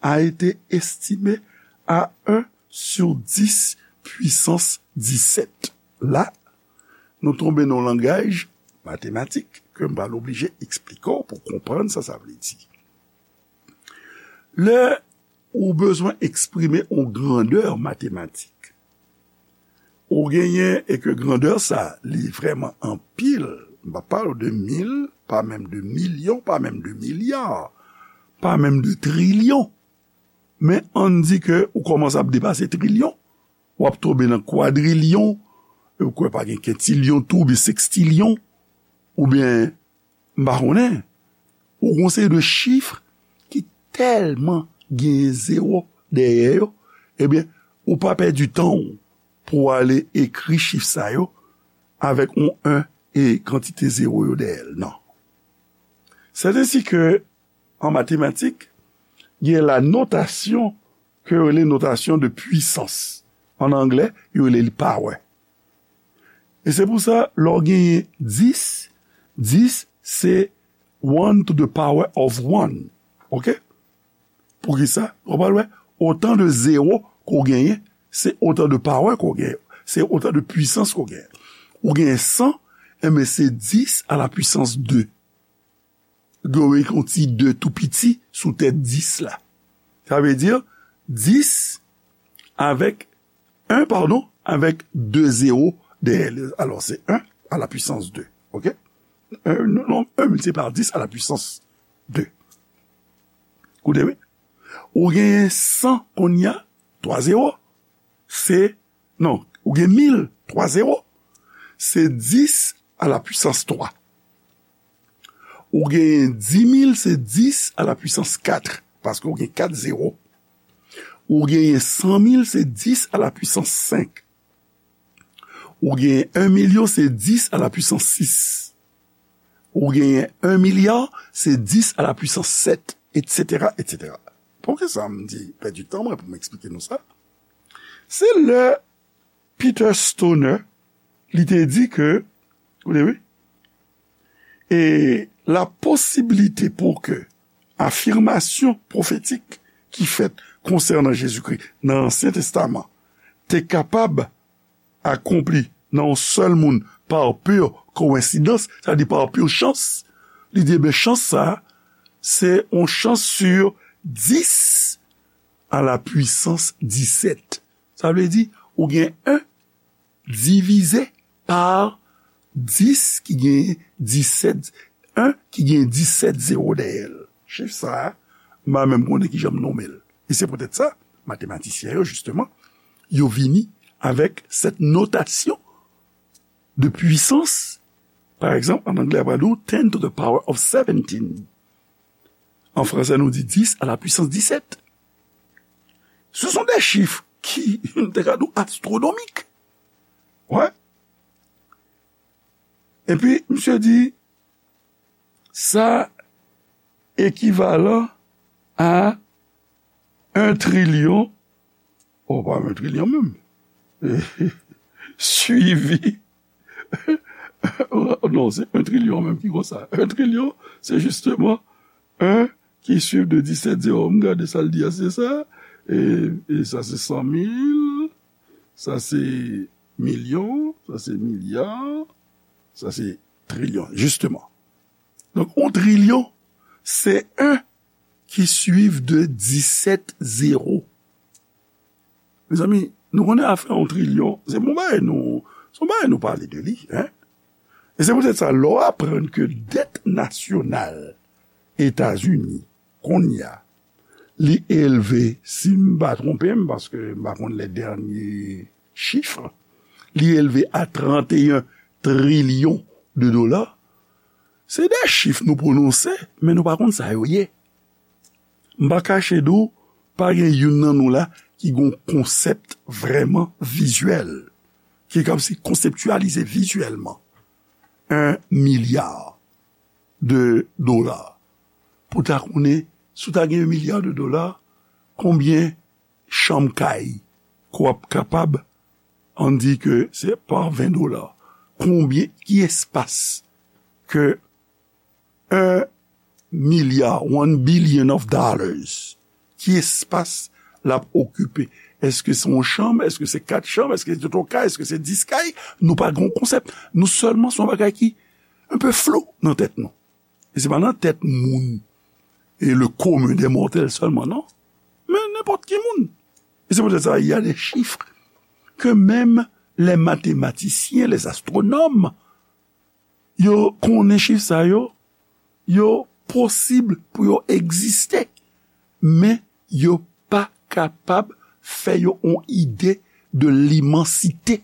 a été estimée à un sur dix puissance dix-sept. La, nou tonbe nan yon langaj matematik ke m pral oblije eksplike w pou w konprann sa sa vle di. Lè ou bezwen eksprime yon grandè matematik, ou genyen, e ke grandè sa, li vrèman anpil, m pa pale w de mil, pa menm de milyon, pa menm de milya, pa menm de trilyon. Men ann di ke ou kòmanse ap depase trilyon, w ap tonbe nan kwadrilyon, e ou kwè pa gen kentilyon tou, oubyen sekstilyon, oubyen, m pa konnen, ou gon seri de chif ki tèlman genyen zewo dèyè yo, ebyen, ou pa pèdi tan w pou w ale ekri chif sa yo avèk yon en e kantite zewo yo dèyè l, non. C'est ainsi que, en mathématiques, il y a la notation ke yo rele notasyon de pwisans. An anglè, yo rele li power. E se pou sa, lè w genyen dis, dis se one to the power of one. Oke? Poukisa? Ou pral wè, otan de zewo ke w genyen, se otan de power ke w genyen. Se otan de pwisans ke w genyen. Ou genyen san, enben se dis a la pwisans de. Gen yon ti de tou piti sou tèt dis la. Sa vle di dis avèk en, padon, avèk de zewo dèyè l. Alò, se en à la puissance deux. Oke? Un, non, un multiplié par dix à la puissance deux. Koute, wi. Ou genyen san kounye a, twa zewo. Se, non, ou gen mil, twa zewo. Se dis à la puissance trois. Ou genyen dis mil, se dis à la puissance quatre, paske ou gen kat zewo. Ou genyen san mil, se dis à la puissance cinq. Ou genyen un million, se dis à la puissance six. Ou genyen un milliard, se dis à la puissance sept, et cetera, et cetera. Poukisa m di pèdi tan mwen pou m eksplike nou sa? Se lè Peter Stoner, li te di ke, koute, wi, e la posibilite pou ke afimasyon pwofetik ki fèt konsènan Jezikri nan Ansyen Testaman te kapab akonpli nan yon sèl moun pa pur kowensidans, sa vle di pa pur chans, li di, ebyen, chans sa, se yon chans sur dis à la puissance dix-sept. Sa vle di, ou gen en divize pa dis ki gen disèt, en ki gen disèt zewo dèyè l. Chif sa a, m pa menm konnen kijan m nonmen l. E se poutèt sa, matematisyen yo, jisteman, yo vini avec cette notation de puissance. Par exemple, en anglais, on va dire ten to the power of seventeen. En français, nou di dix à la puissance dix-sept. Ce sont des chiffres qui, te ka di w, astronomiques. Ouais. Epi, misye di, sa ekivalan a un trilyon, oh, pa un trilyon menm, suivi, non, se un trilyon menm ki konsa. Un trilyon, se justement un ki suiv de dix-sept zéro. M gade sa l di a, se sa. E, e sa se san mil, sa se milyon, sa se milya, sa se trilyon, justement. Donk, un trilyon, se un ki suiv de dix-sept zéro. Mezanmi, nou konnen afè yon trilyon, se bon bagay nou, se yon bagay nou pale de li, hein? E se poutèt sa, lè w aprann ke dèt nasyonal Etazini, kounye a, li elve, si m pa twonpe m, paske m pa konn les derniers chiffres, li elve a trente et un trilyon de dola, se de chif nou pwononse, men nou pa konn sa yo ye. M pa kache di w, pa gen youn nan nou la ki gon konsèp vrèman vizyèl, ki kab si konseptyalize vizyèlman un milliard de dola. Pou ta konnen, si w ta gen un milliard de dola, konbyen chanm kay ke w ap kapab, ann di ke se pa ven dola. Konbyen, ki espas ke un milliard, one billion of dollars, ki espas l ap okipe? Èske se yon chanm? Èske se kat chanm? Èske se twa kay? Èske se dis kay? Nou pa gen yon konsèp. Nou sèlman, se yon bagay ki un peu flou nan tèt nou. E se pa nan tèt moun, e le commun des mortels sèlman, non. Men nenpòt ki moun. E se poutèt sa, il y a des chiffres que même les mathématiciens, les astronomes, yo konnen chif sa yo, yo posib pou yo egziste, men yo pa kapab fè yo yon ide de l'immensité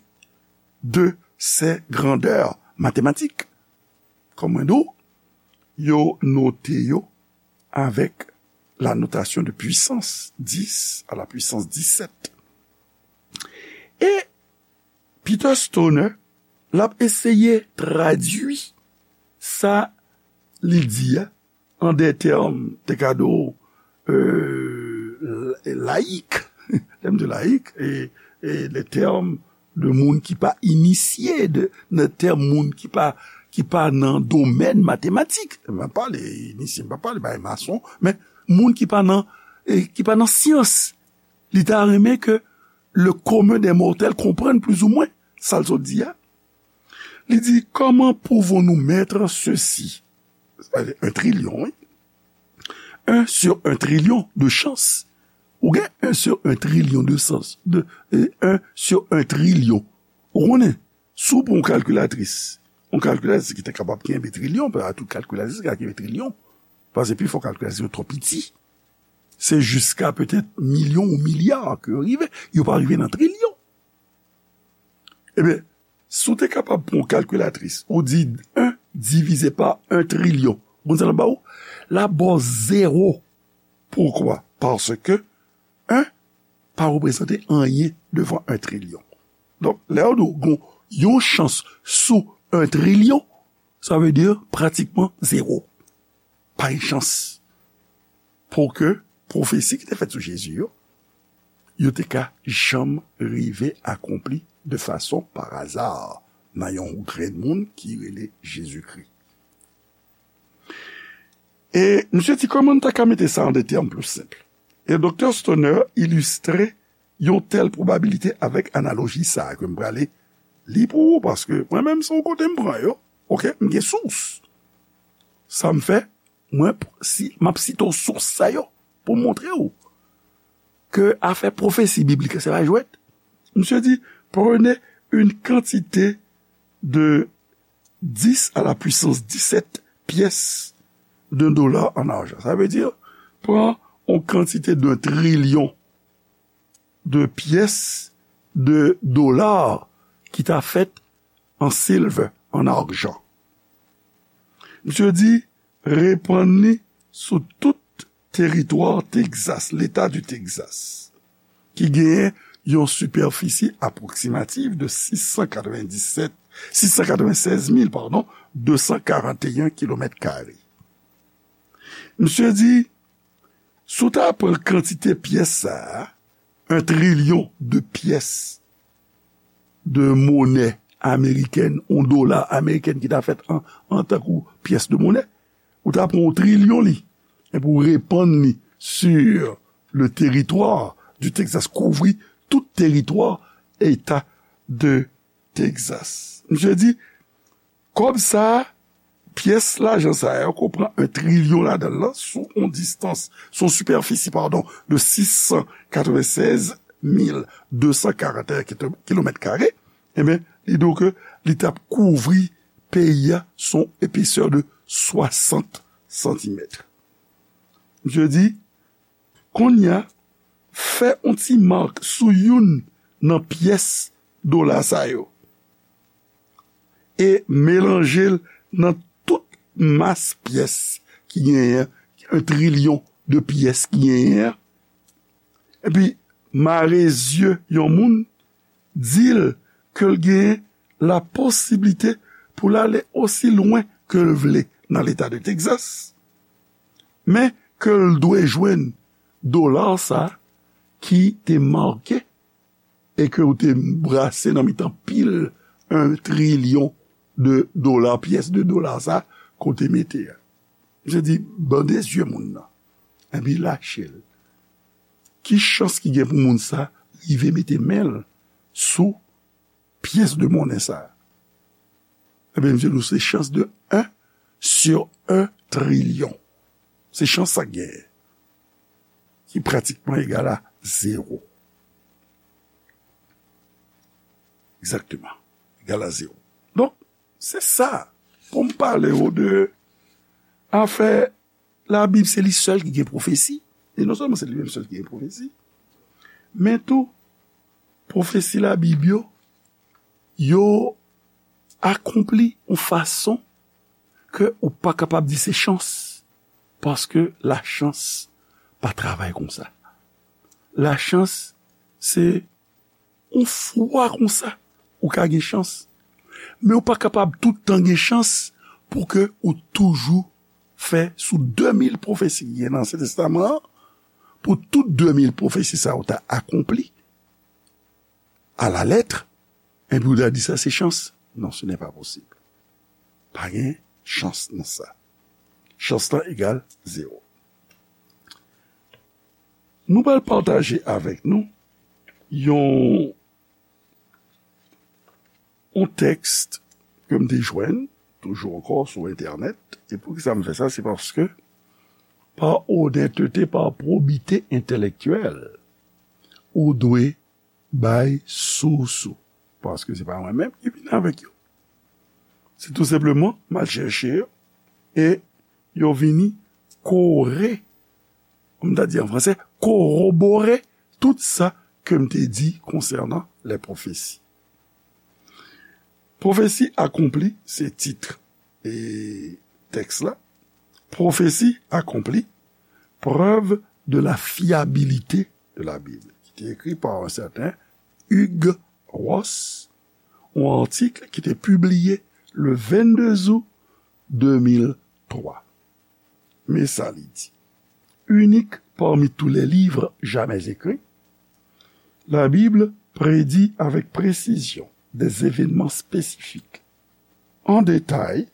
de ces grandeurs mathématiques. Kòm mwen di w, yo note yo avec la notation de puissance dix à la puissance dix-sept. E Peter Stoner, l ap eseye tradui sa li di a an de tèm, te ka di w, euh, layik, tèm de layik, e, e de tèm de moun ki pa inisye, de, de tèm moun ki pa, ki pa nan domèn matematik. M pa pale inisye, m pa pale bay mason, men moun ki pa nan, e, ki pa nan syans. Li ta renmen ke le commun des mortels konprann plizoumwen sa l sot di a. Li di, comment pouvons-nous mettre ceci? Sa vle di un trilyon, wi. Un sur un trilyon de chans. Ou gen un sur un trilyon de chans. De, euh, un sur un trilyon. Ou konnen, si w pran yon kalkilatris, yon kalkilatris ki te kapab kenbe trilyon, pa tout kalkilatris ki ka kenbe trilyon, paske pifò kalkilatris yo twò piti. Se jiska petèt milyon ou milya ke yo rive. Yo pa rive nan trilyon. Ebyen, si w te kapab pran yon kalkilatris, ou di un divisé par un trilyon, ou konn sa l ap ba w? L ap ba w zewo. Poukwa? Paske un pa reprezante anyen devan un trilyon. Donk, lè yo di w gon yon chans sou un trilyon, sa vle di pratikman zewo. Pa gen chans pou ke pwofesi ki te fèt sou Jezi yo, yo te ka janm rive akonpli de fason pa aza nan yon grenn moun ki rele Jezikri. E misye di, kòman n ta ka mete sa an de tèm pli senp? E Doktè Stoner ilistre yon tèl pwobabilite avèk analoji sa a ke m prale li pou ou, paske mwen menm, se yon kote m pran yo. Oke, m gen sous. Sa m fè, mwen, si, m ap site w sous sa yo pou m montre w ke afè pwofesi biblik, se pa jwèt. Misye di, prenez une quantité de dix à la puissance dix-sept pièces d'un dollar en argent. Sa vle di, pran yon kantite de trilyon de pyès de dola ki ta fèt an silvè, an ajan. Misye di, repann li sou tout teritwa Texas, leta di Texas, ki genyen yon sipèfisi apwoksimatif de sis san katrevenndisèt, sis san katrevennsèz mil, padon, de san karanteyen kilomèt kare. Misye di, si w ta pran kantite pyès sa a, yon trilyon de pyès de monè amerikèn, yon dola amerikèn ki ta fèt an, an tankou pyès de monè, ou ta pran yon trilyon li, epi w repann li sur le territoire du Texas, kouvri tout teritwa eta de Texas. Misye di, kòb sa a, pyès lajan sa yo, ke w pran yon trilyon ladan l lan, sou yon distans, sou yon sipèfisi, padon, de sis san katrevennsèz mil de san karanteyen kilomèt kare, ebyen, li di w ke li t ap kouvri peyi a, sou yon epesè de swasant santimèt. Misye di, kounye a, fè yon ti mak sou youn nan pyès dola sa yo e melanje l nan tout mas pyès ki genyen an, yon trilyon de pyès ki genyen an, epi mare zye yon moun, di l ke l gen la posiblite pou l ale osi lwen ke l vle nan leta de Texas, men ke l dwe jwenn dola sa ki te make e ke w te brase nan mitan pil yon trilyon de dola, pyès de dola sa ke w te mete a. Misye di, bande zye moun nan, epi lache l. Ki chans ki gen pou moun sa rive mete men l sou pyès de monnen sa? Ebyen, misye di w se chans de un sur un trilyon. Se chans sa k genyen, ki pratikman egal a zewo. Egzakteman. Egal a zewo. Donk, se sa. Pou m pale w de afè Labib, se li sèl ki gen pwofesi. E non sèlman se li menm sèl ki gen pwofesi, men tou, pwofesi Labib yo, yo akonpli yon fason ke ou pa kapab di se chans, paske lachans pa travay konsa. Lachans, se yon fwa konsa, ou ka gen chans. Men ou pa kapab tout tan gen chans pou ke ou toujou fè sou de mil pwofesi ki gen nan Ansyen Testaman an, pou tout de mil pwofesi sa yo ta akonpli à la lettre, epi ou ta di sa se chans. Non, ce n'est pas possible. Pa gen chans nan sa. Chans lan egal zewo. Nou pral pataje avèk nou yon, yon tèks ke m te jwenn, toujou ankò sou entènèt. E poukisa m fè sa? Se paske, pa onètete, pa pwobite entèlektyèl, ou dwe bay sous ou. Paske se pa mwen menm ki vin avèk yo. Se tou senpleman, m al chèche yo, e yo vini kore, kòm ta di an fransè, korobore tout sa ke m te di konsènan les prophéties. Pwofesi akonpli, se tit e tèks la. Pwofesi akonpli, preuve de la fiabilité de la Bible, ki te ekri pa yon sèten Hugh Ross, yon atik ki te pibliye le vennde zout de mil twa. Men sa li di, unique parmi tous les livres jamais écrits, la Bible prédit avec précision des événements spécifiques, en détail,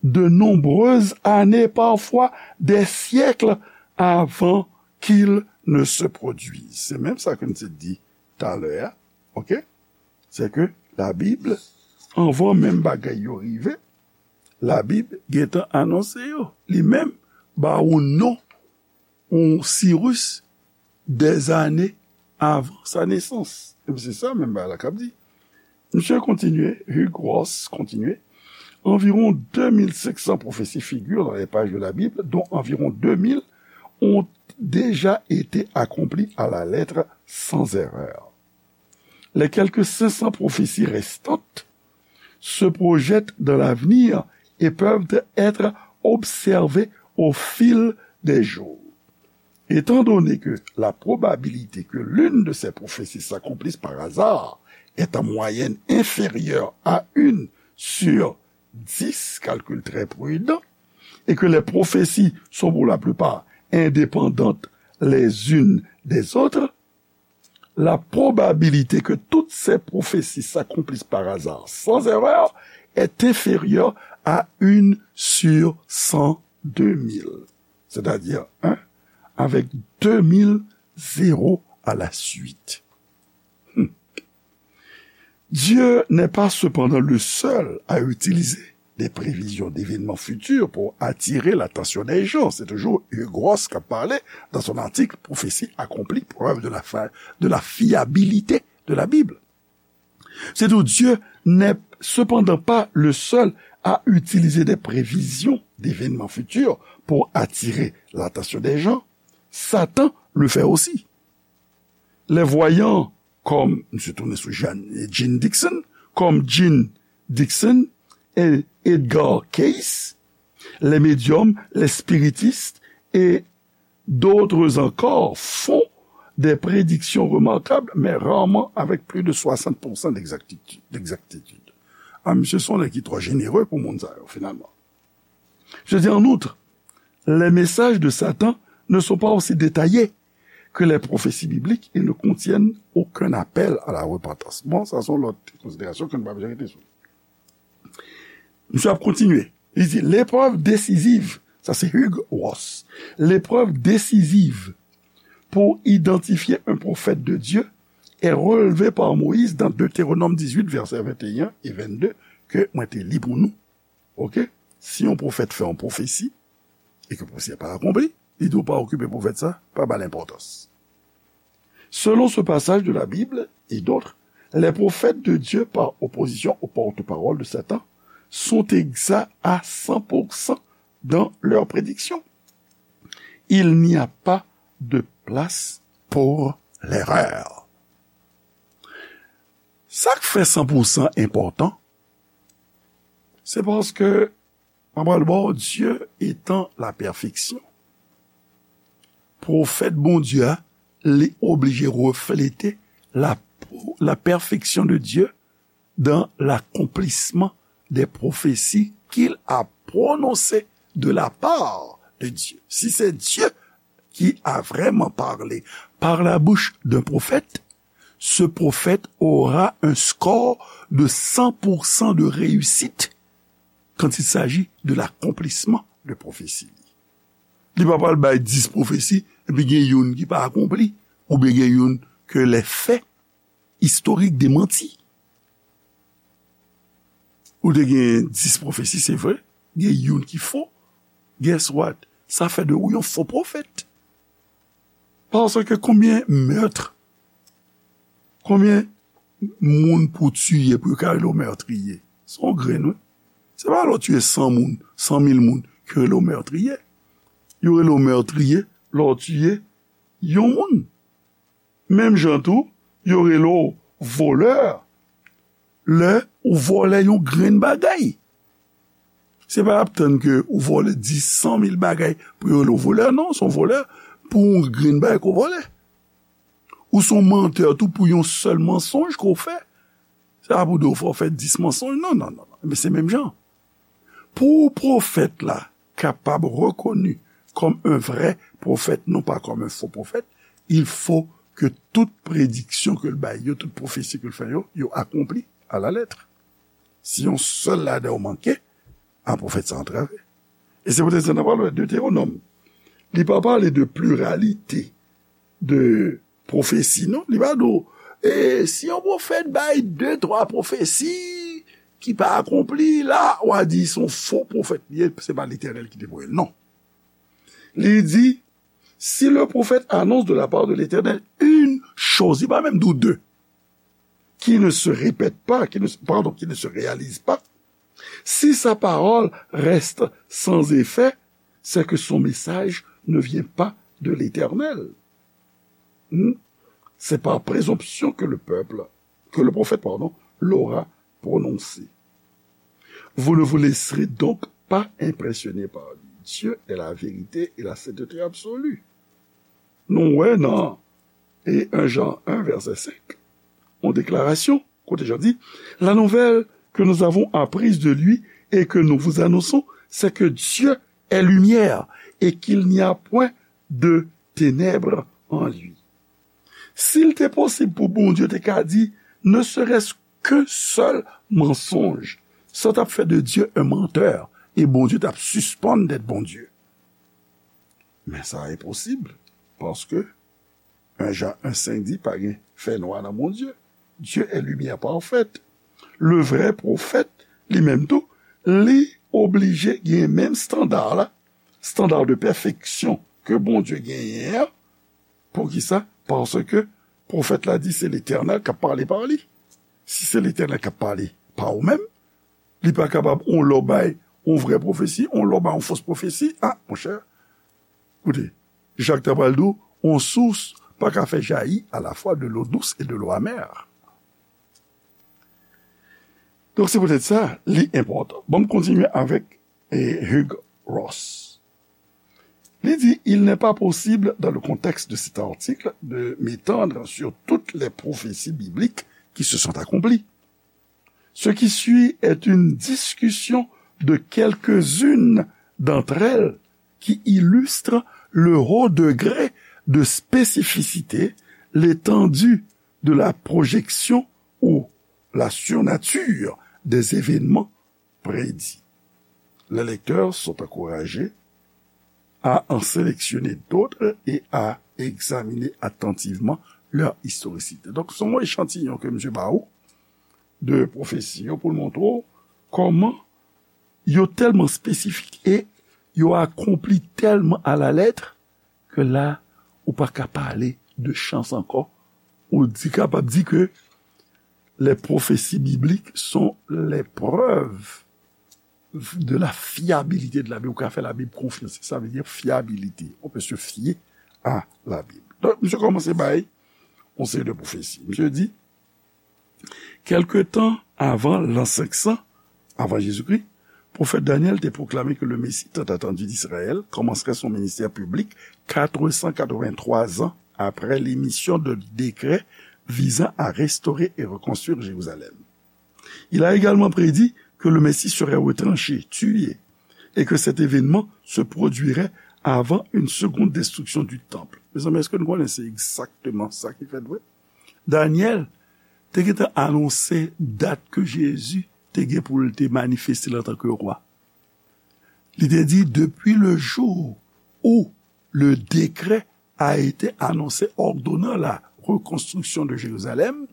de nombreuses années, parfois des siècles avant qu'ils ne se produisent. Se menm sa ke n te di talè a, oke? Se ke Labib, anvan menm bagay yo rive, Labib gentan anonse yo. Li menm ba ou non yon Sirus dèzane avan sa nesans. Epi se sa menm bagay la k ap di. Misye kontinye, Hugh Ross kontinye, environ deux mille cinq cents prophéties figurent dans les pages de la Bible, dont environ deux mille ont déjà été accomplies à la lettre sans erreur. les quelques cinq cents prophéties restantes se projettent dans l'avenir et peuvent être observées au fil des jours. Étant donné que la probabilité que l'une de ces prophéties s'accomplisse par hasard est en moyenne inférieure à une sur dix, calcul très prudent, et que les prophéties sont pour la plupart indépendantes les unes des autres, la probabilité que toutes ces prophéties s'accomplissent par hasard sans erreur est inférieure à une sur cent, deux mille, c'est-à-dire un avec deux mille zéros à la suite. Hmm. Dieu n'est pas cependant le seul à utiliser des prévisions d'événements futurs pour attirer l'attention des gens. C'est toujours Hugh Ross qui a parlé dans son article Prophétie accomplie, preuve de la, fa- de la fiabilité de la Bible. C'est tout. Dieu n'est cependant pas le seul à utiliser des prévisions d'événements futurs pour attirer l'attention des gens. Satan le fait aussi. Les voyants comme, M. Tournesou Jean, Jean Dixon, comme Jean Dixon et Edgar Cayce, les médiums, les spiritistes et d'autres encore font des prédictions remarquables, mais rarement avec plus de soixante pour cent d'exactitude. D'exactitude. Ah, monsieur, sont les qui trop généreux pour monde ça, finalement. Je dis en outre, les messages de Satan ne sont pas aussi détaillés que les prophéties bibliques et ne contiennent aucun appel à la repentance. Bon, sa se yon lòt konsiderasyon ke nou pa bezwen rete sou. Misye ap kontinye. Li di, l'épreuve décisive, ça c'est Hugh Ross, l'épreuve décisive pour identifier un prophète de Dieu est relevée par Moïse dans Deutéronome dix-huit, versets vingt et un et vingt-deux, ke mwen te li pou nou. Ok? Si yon pwofèt fè yon pwofesi, e ke pwofesi a pa akonpli, li di w pa okipe pwofèt sa, pa ba l enpòtans. Selon ce passage de la Bible et d'autres, les prophètes de Dieu, par opposition aux porte-parole de Satan, sont exacts à cent pour cent dans leurs prédictions. Il n'y a pas de place pour l'erreur. Sa k fè san pou san enpòtan, se paske, mwen pral ba w, Dieu étant la perfection, pwofèt Bondye a, li oblije reflete la, la perfection de Dieu dans l'accomplissement des prophéties qu'il a prononcées de la part de Dieu. Si c'est Dieu qui a vraiment parlé par la bouche d'un prophète, ce prophète aura un score de cent pour cent de réussite quand il s'agit de l'accomplissement de prophétie. Li pa pral bay dis pwofesi, epi gen youn ki pa akonpli, oubyen gen youn ke lè fè istorik demanti. Ou te gen dis pwofesi, se vre, gen youn ki fo. Guess what? Sa fè de ou yon fo pwofèt. Paske konbyen mèt, konbyen moun pou tiye pou yo ka rele w mètriye? Se yon grenn, wi. Se pa lè w tiye san moun, san mil moun, ke yo rele w mètriye. Yo rele w mètriye lè w tiye yon moun. Menm jan tou, yo rele w volè lè ou vòlè yon grenn bagay. Se pa y ap tann ke ou vòlè dis, san mil bagay pou yo rele w volè, non, se yon volè pou yon grenn bagay ke w vòlè. Ou se yon mantè tou pou yon sèl mansonj ke w fè. Se pa pou di w fò w fè dis mansonj, non, non, non, non. Men se menm jan. Pou pwofèt la kapab rekoni kòm un vrai prophète, non pas comme un faux prophète, il faut que tout prediksyon ke l bay yo, tout pwofesi ke l fè yo, yo akonpli à la lettre. Si yon sèl ladan yo manke, a, pwofèt sa antrave. E se poutèt sa n ap pale Deutéronome. Li pa pale de pluralité de pwofesi, non. Li pa di w, e si yon pwofèt bay de, twa pwofesi ki pa akonpli, la, w a di se yon fo pwofèt li ye, se pa Letènèl ki te voye l, non. Li di, si le prophète annonce de la part de l'Éternel une chose, li pa menm di w de, qui ne se répète pas, qui ne, pardon, qui ne se réalise pas, si sa parole reste sans effet, c'est que son message ne vient pas de l'Éternel. Hmm? C'est par présomption que le peuple, que le prophète, pardon, l'aura prononcé. Vous ne vous laisserez donc pas impressionner par lui. Dieu est la vérité et la sainteté absolue. Nou wè nan e un Jean un, verset cinq, yon deklarasyon, kote Jan di, la nouvelle que nous avons apprise de lui et que nous vous annonçons, c'est que Dieu est lumière et qu'il n'y a point de ténèbres en lui. Si l te posib pou Bondye te ka di, ne serait-ce qu'un seul mensonge, sa t ap fè de Dieu un menteur, e Bondye t ap sispann d'être Bondye. Men sa enposib, paske un Jean un cinq di pa gen fènwa nan Bondye. Dieu est lumière parfaite. Le vrai prophète, li menm tou, li oblije gen menm standard la, standard de perfection ke Bondye genyen an. Poukisa? Paske pwofèt la di se Letènèl k ap pale pa li. Si se Letènèl k ap pale pa ou menm, li pa kapab yon lè w bay yon vrè pwofesi, yon lè w bay yon fos pwofesi. A, monchè, koute, Jak ta pral di w, yon sous pa ka fè jayi alafwa de l'eau douce et de l'eau amère. Donk, se poutèt sa, li enpòtan. Bon, m kontinye avèk e, Hugh Ross. Li di, il n'est pas possible, dans le contexte de cet article, de m'étendre sur toutes les prophéties bibliques qui se sont accomplies. Ce qui suit est une discussion de quelques-unes d'entre elles qui illustre le haut degré de spécificité, l'étendue de la projection ou la surnature des événements prédits. Les lecteurs sont encouragés à en sélectionner d'autres et à examiner attentivement leur historicité. Donk, se yon echantiyon ke misye ba ou de pwofesi yo pou l montre w kòman yo tèlman espesifik e yo akonpli tèlman alalèt ke la, ou pa ka pale de chans ankò. Ou di, kapab di ke les prophéties bibliques sont les preuves de la fiabilité de la Bible. Ou ka fè Labib konfyans. Sa vle di fyabilite. On peut se fier à la Bible. Donk, misye kòmanse bay yon seri de pwofesi. Misye di, quelque temps avant l'an cinq cents, avant Jésus-Christ, prophète Daniel te proclamé que le Messie tant attendu d'Israël commencerait son ministère public quatre cent quatre-vingt-trois ans après l'émission de décret visant à restaurer et reconstruire Jérusalem. Il a également prédit que le Messie serait retranché, tué, et que cet événement se produirait avant une seconde destruction du temple. Mezanmi, èske nou konnen se egzakteman sa ki fèt vre? Daniel te gentan anonse dat ke Jezi te gen pou l te manifeste l antanke wa. Li te di, depuis le jour où le décret a été annoncé ordonnant la reconstruction de Jérusalem,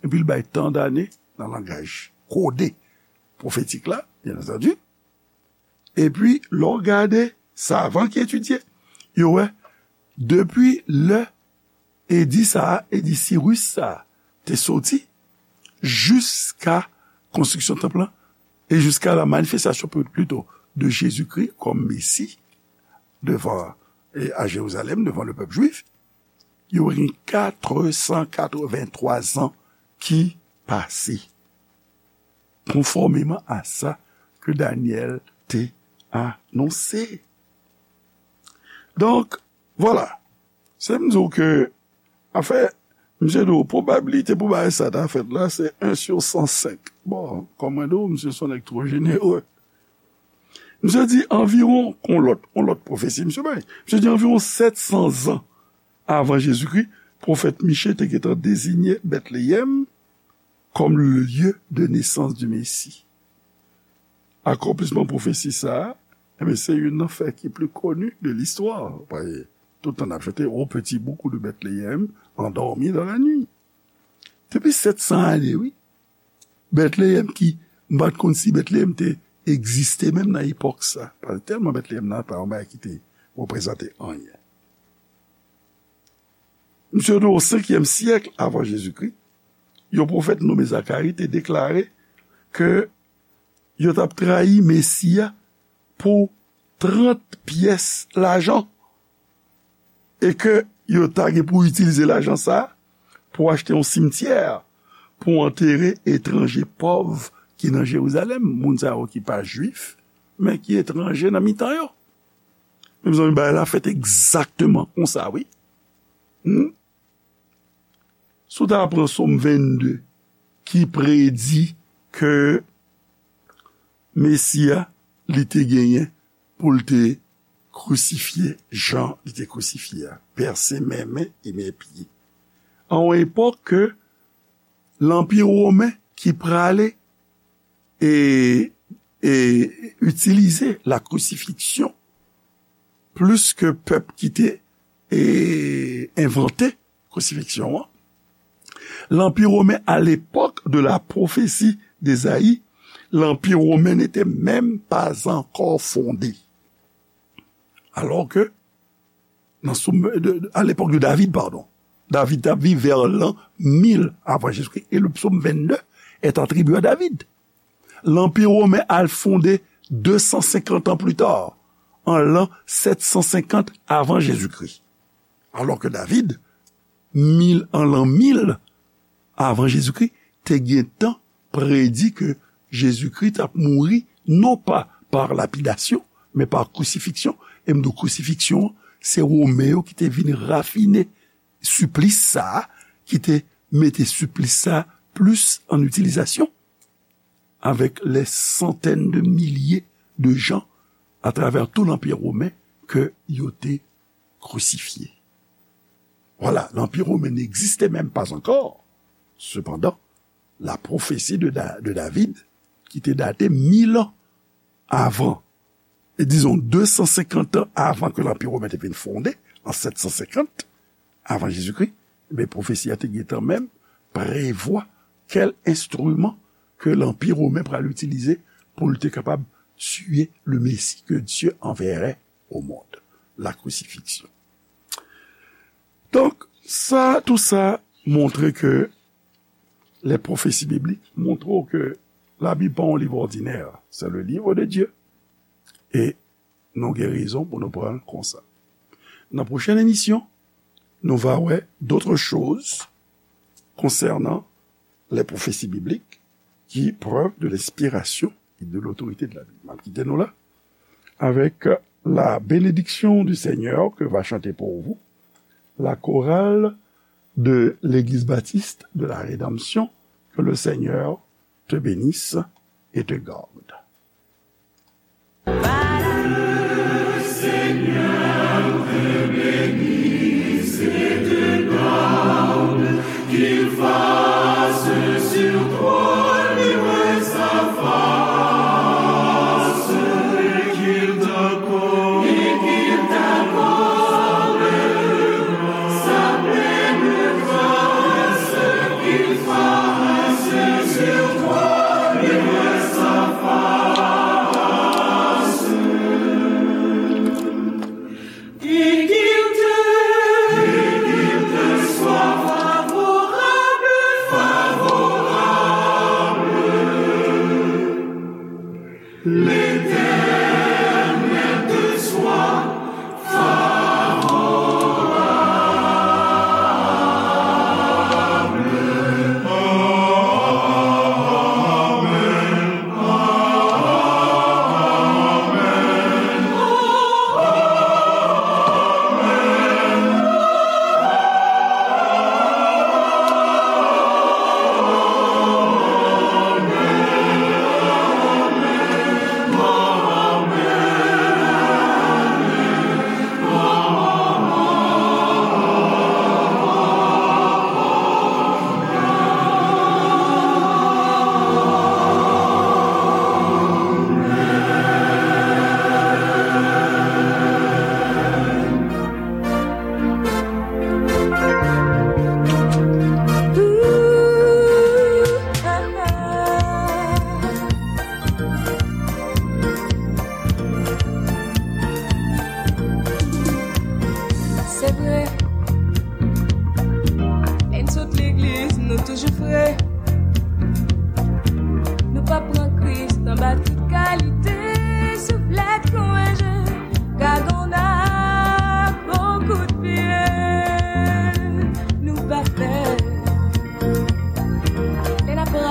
epi l bay tan dane nan langaj kode pwofetik la, bien entendu. Epi, lè w gade savan ki etidye, yo wè, depi lè edi sa a, edi Siris sa a, te soti, jiska konstriksyon tanp lan, e jiska la manifestasyon, plito, de Jezikri kòm Mesi devan, e a Jerizalèm, devan le pèp jwif, yo gen quatre cent quatre-vingt-trois an ki pase, konfòmeman a sa ke Danyèl te anonse. Donk, vwala. Se m di w ke, anfen, misye di w, pwobabilite pou bagay sa ta fèt la, se un sur cent cinq. Bon, kòm mwen di w, misye se yon nèg twò jenere. Misye di anviwon, yon lòt, yon lòt pwofesi, misye bay. Misye di anviwon sèt san zan avan Jezikri, pwofèt Miche te gentan deziye Bètleyèm comme le lieu de naissance du Messie. Akonplisman pwofesi sa a, enben, se youn nan fè ki pli koni de listwa. Paske tout tan n ap chante, Ô petit bourg de Bethléem, endormi dans la nuit. Depi sèt san ane, wi. Bètleyèm ki, m pa t konn si Bètleyèm te egziste menm nan epòk sa. Paske tèlman Bètleyèm nan pa yon bagay ki te reprezante anyen. Misye di w, o senkyèm syèk avan Jezikri, yon pwofèt nonmen Zakari te deklare ke yo t ap trayi Mesi a pou trant pyès lajan e ke yo ta gen pou itilize lajan sa a pou achte yon simtyè pou antere etranje pòv ki nan Jerizalèm, moun sa yo ki pa Jwif, men ki etranje nan mitan yo. Mezanmi, bagay la fèt egzakteman konsa, wi. Hmm? Si w ta pran Sòm vennde, ki predi ke Mesi a, li te genyen pou l te krisifye jan li te krisifye a, pèse men men e men pye. A yon epòk ke Lanpi Women ki prale e, e itilize la crucifixion plis ke pèp ki te, e, envante krisifiksyon an. Lanpi Women, à l'époque de la prophétie d'Ésaïe, Lanpi Women n'était même pas encore fondé. Alors que, nan Sòm, de, de, à l'époque de David, pardon, David t ap viv vè lan mil avan Jezikri, e le psaume vingt-deux est attribué à David. Lanpi Women al fonde deux cent cinquante ans plus tard, an lan sept cent cinquante avan Jezikri. Alò ke David, mil, an lan mil avan Jezikri, te gentan predi ke Jezikri t ap mouri, non pa pa lapidasyon, men pa krisifiksyon. E m di w krisifiksyon an, se Women yo ki te vin rafine siplis sa a, ki te mete siplis sa a plis an itilizasyon, avec les centaines de milliers de gens à travers tout l'Empire romain que yo te crucifié. Voilà, l'Empire romain n'existait même pas encore. Cependant, la prophétie de, Da- de David, ki te date mil ans avan, e dizon deux cent cinquante ans avan ke Lanpi Women te vin fonde, an sept cent cinquante avan Jezikri, men pwofesi a te gentan menm prevwa kèl enstriman ke Lanpi Women pral itilize pou l te kapab tiye le Messie que Dieu enverrait au monde, la crucifixion. Donk, sa, tou sa montre ke les prophéties bibliques montre w ke Labib pa yon liv òdinè, c'est le livre de Dieu. E nou gen rezon pou nou pran l konsa. Nan pwochèn emisyon, nou va wè d'autres choses concernant les prophéties bibliques qui preuve de l'inspiration et de l'autorité de la Bible. M ap kite nou la avec la bénédiction du Seigneur que va chanter pour vous la chorale de l'Église baptiste de la Rédemption. Que le Seigneur te bénisse et te garde.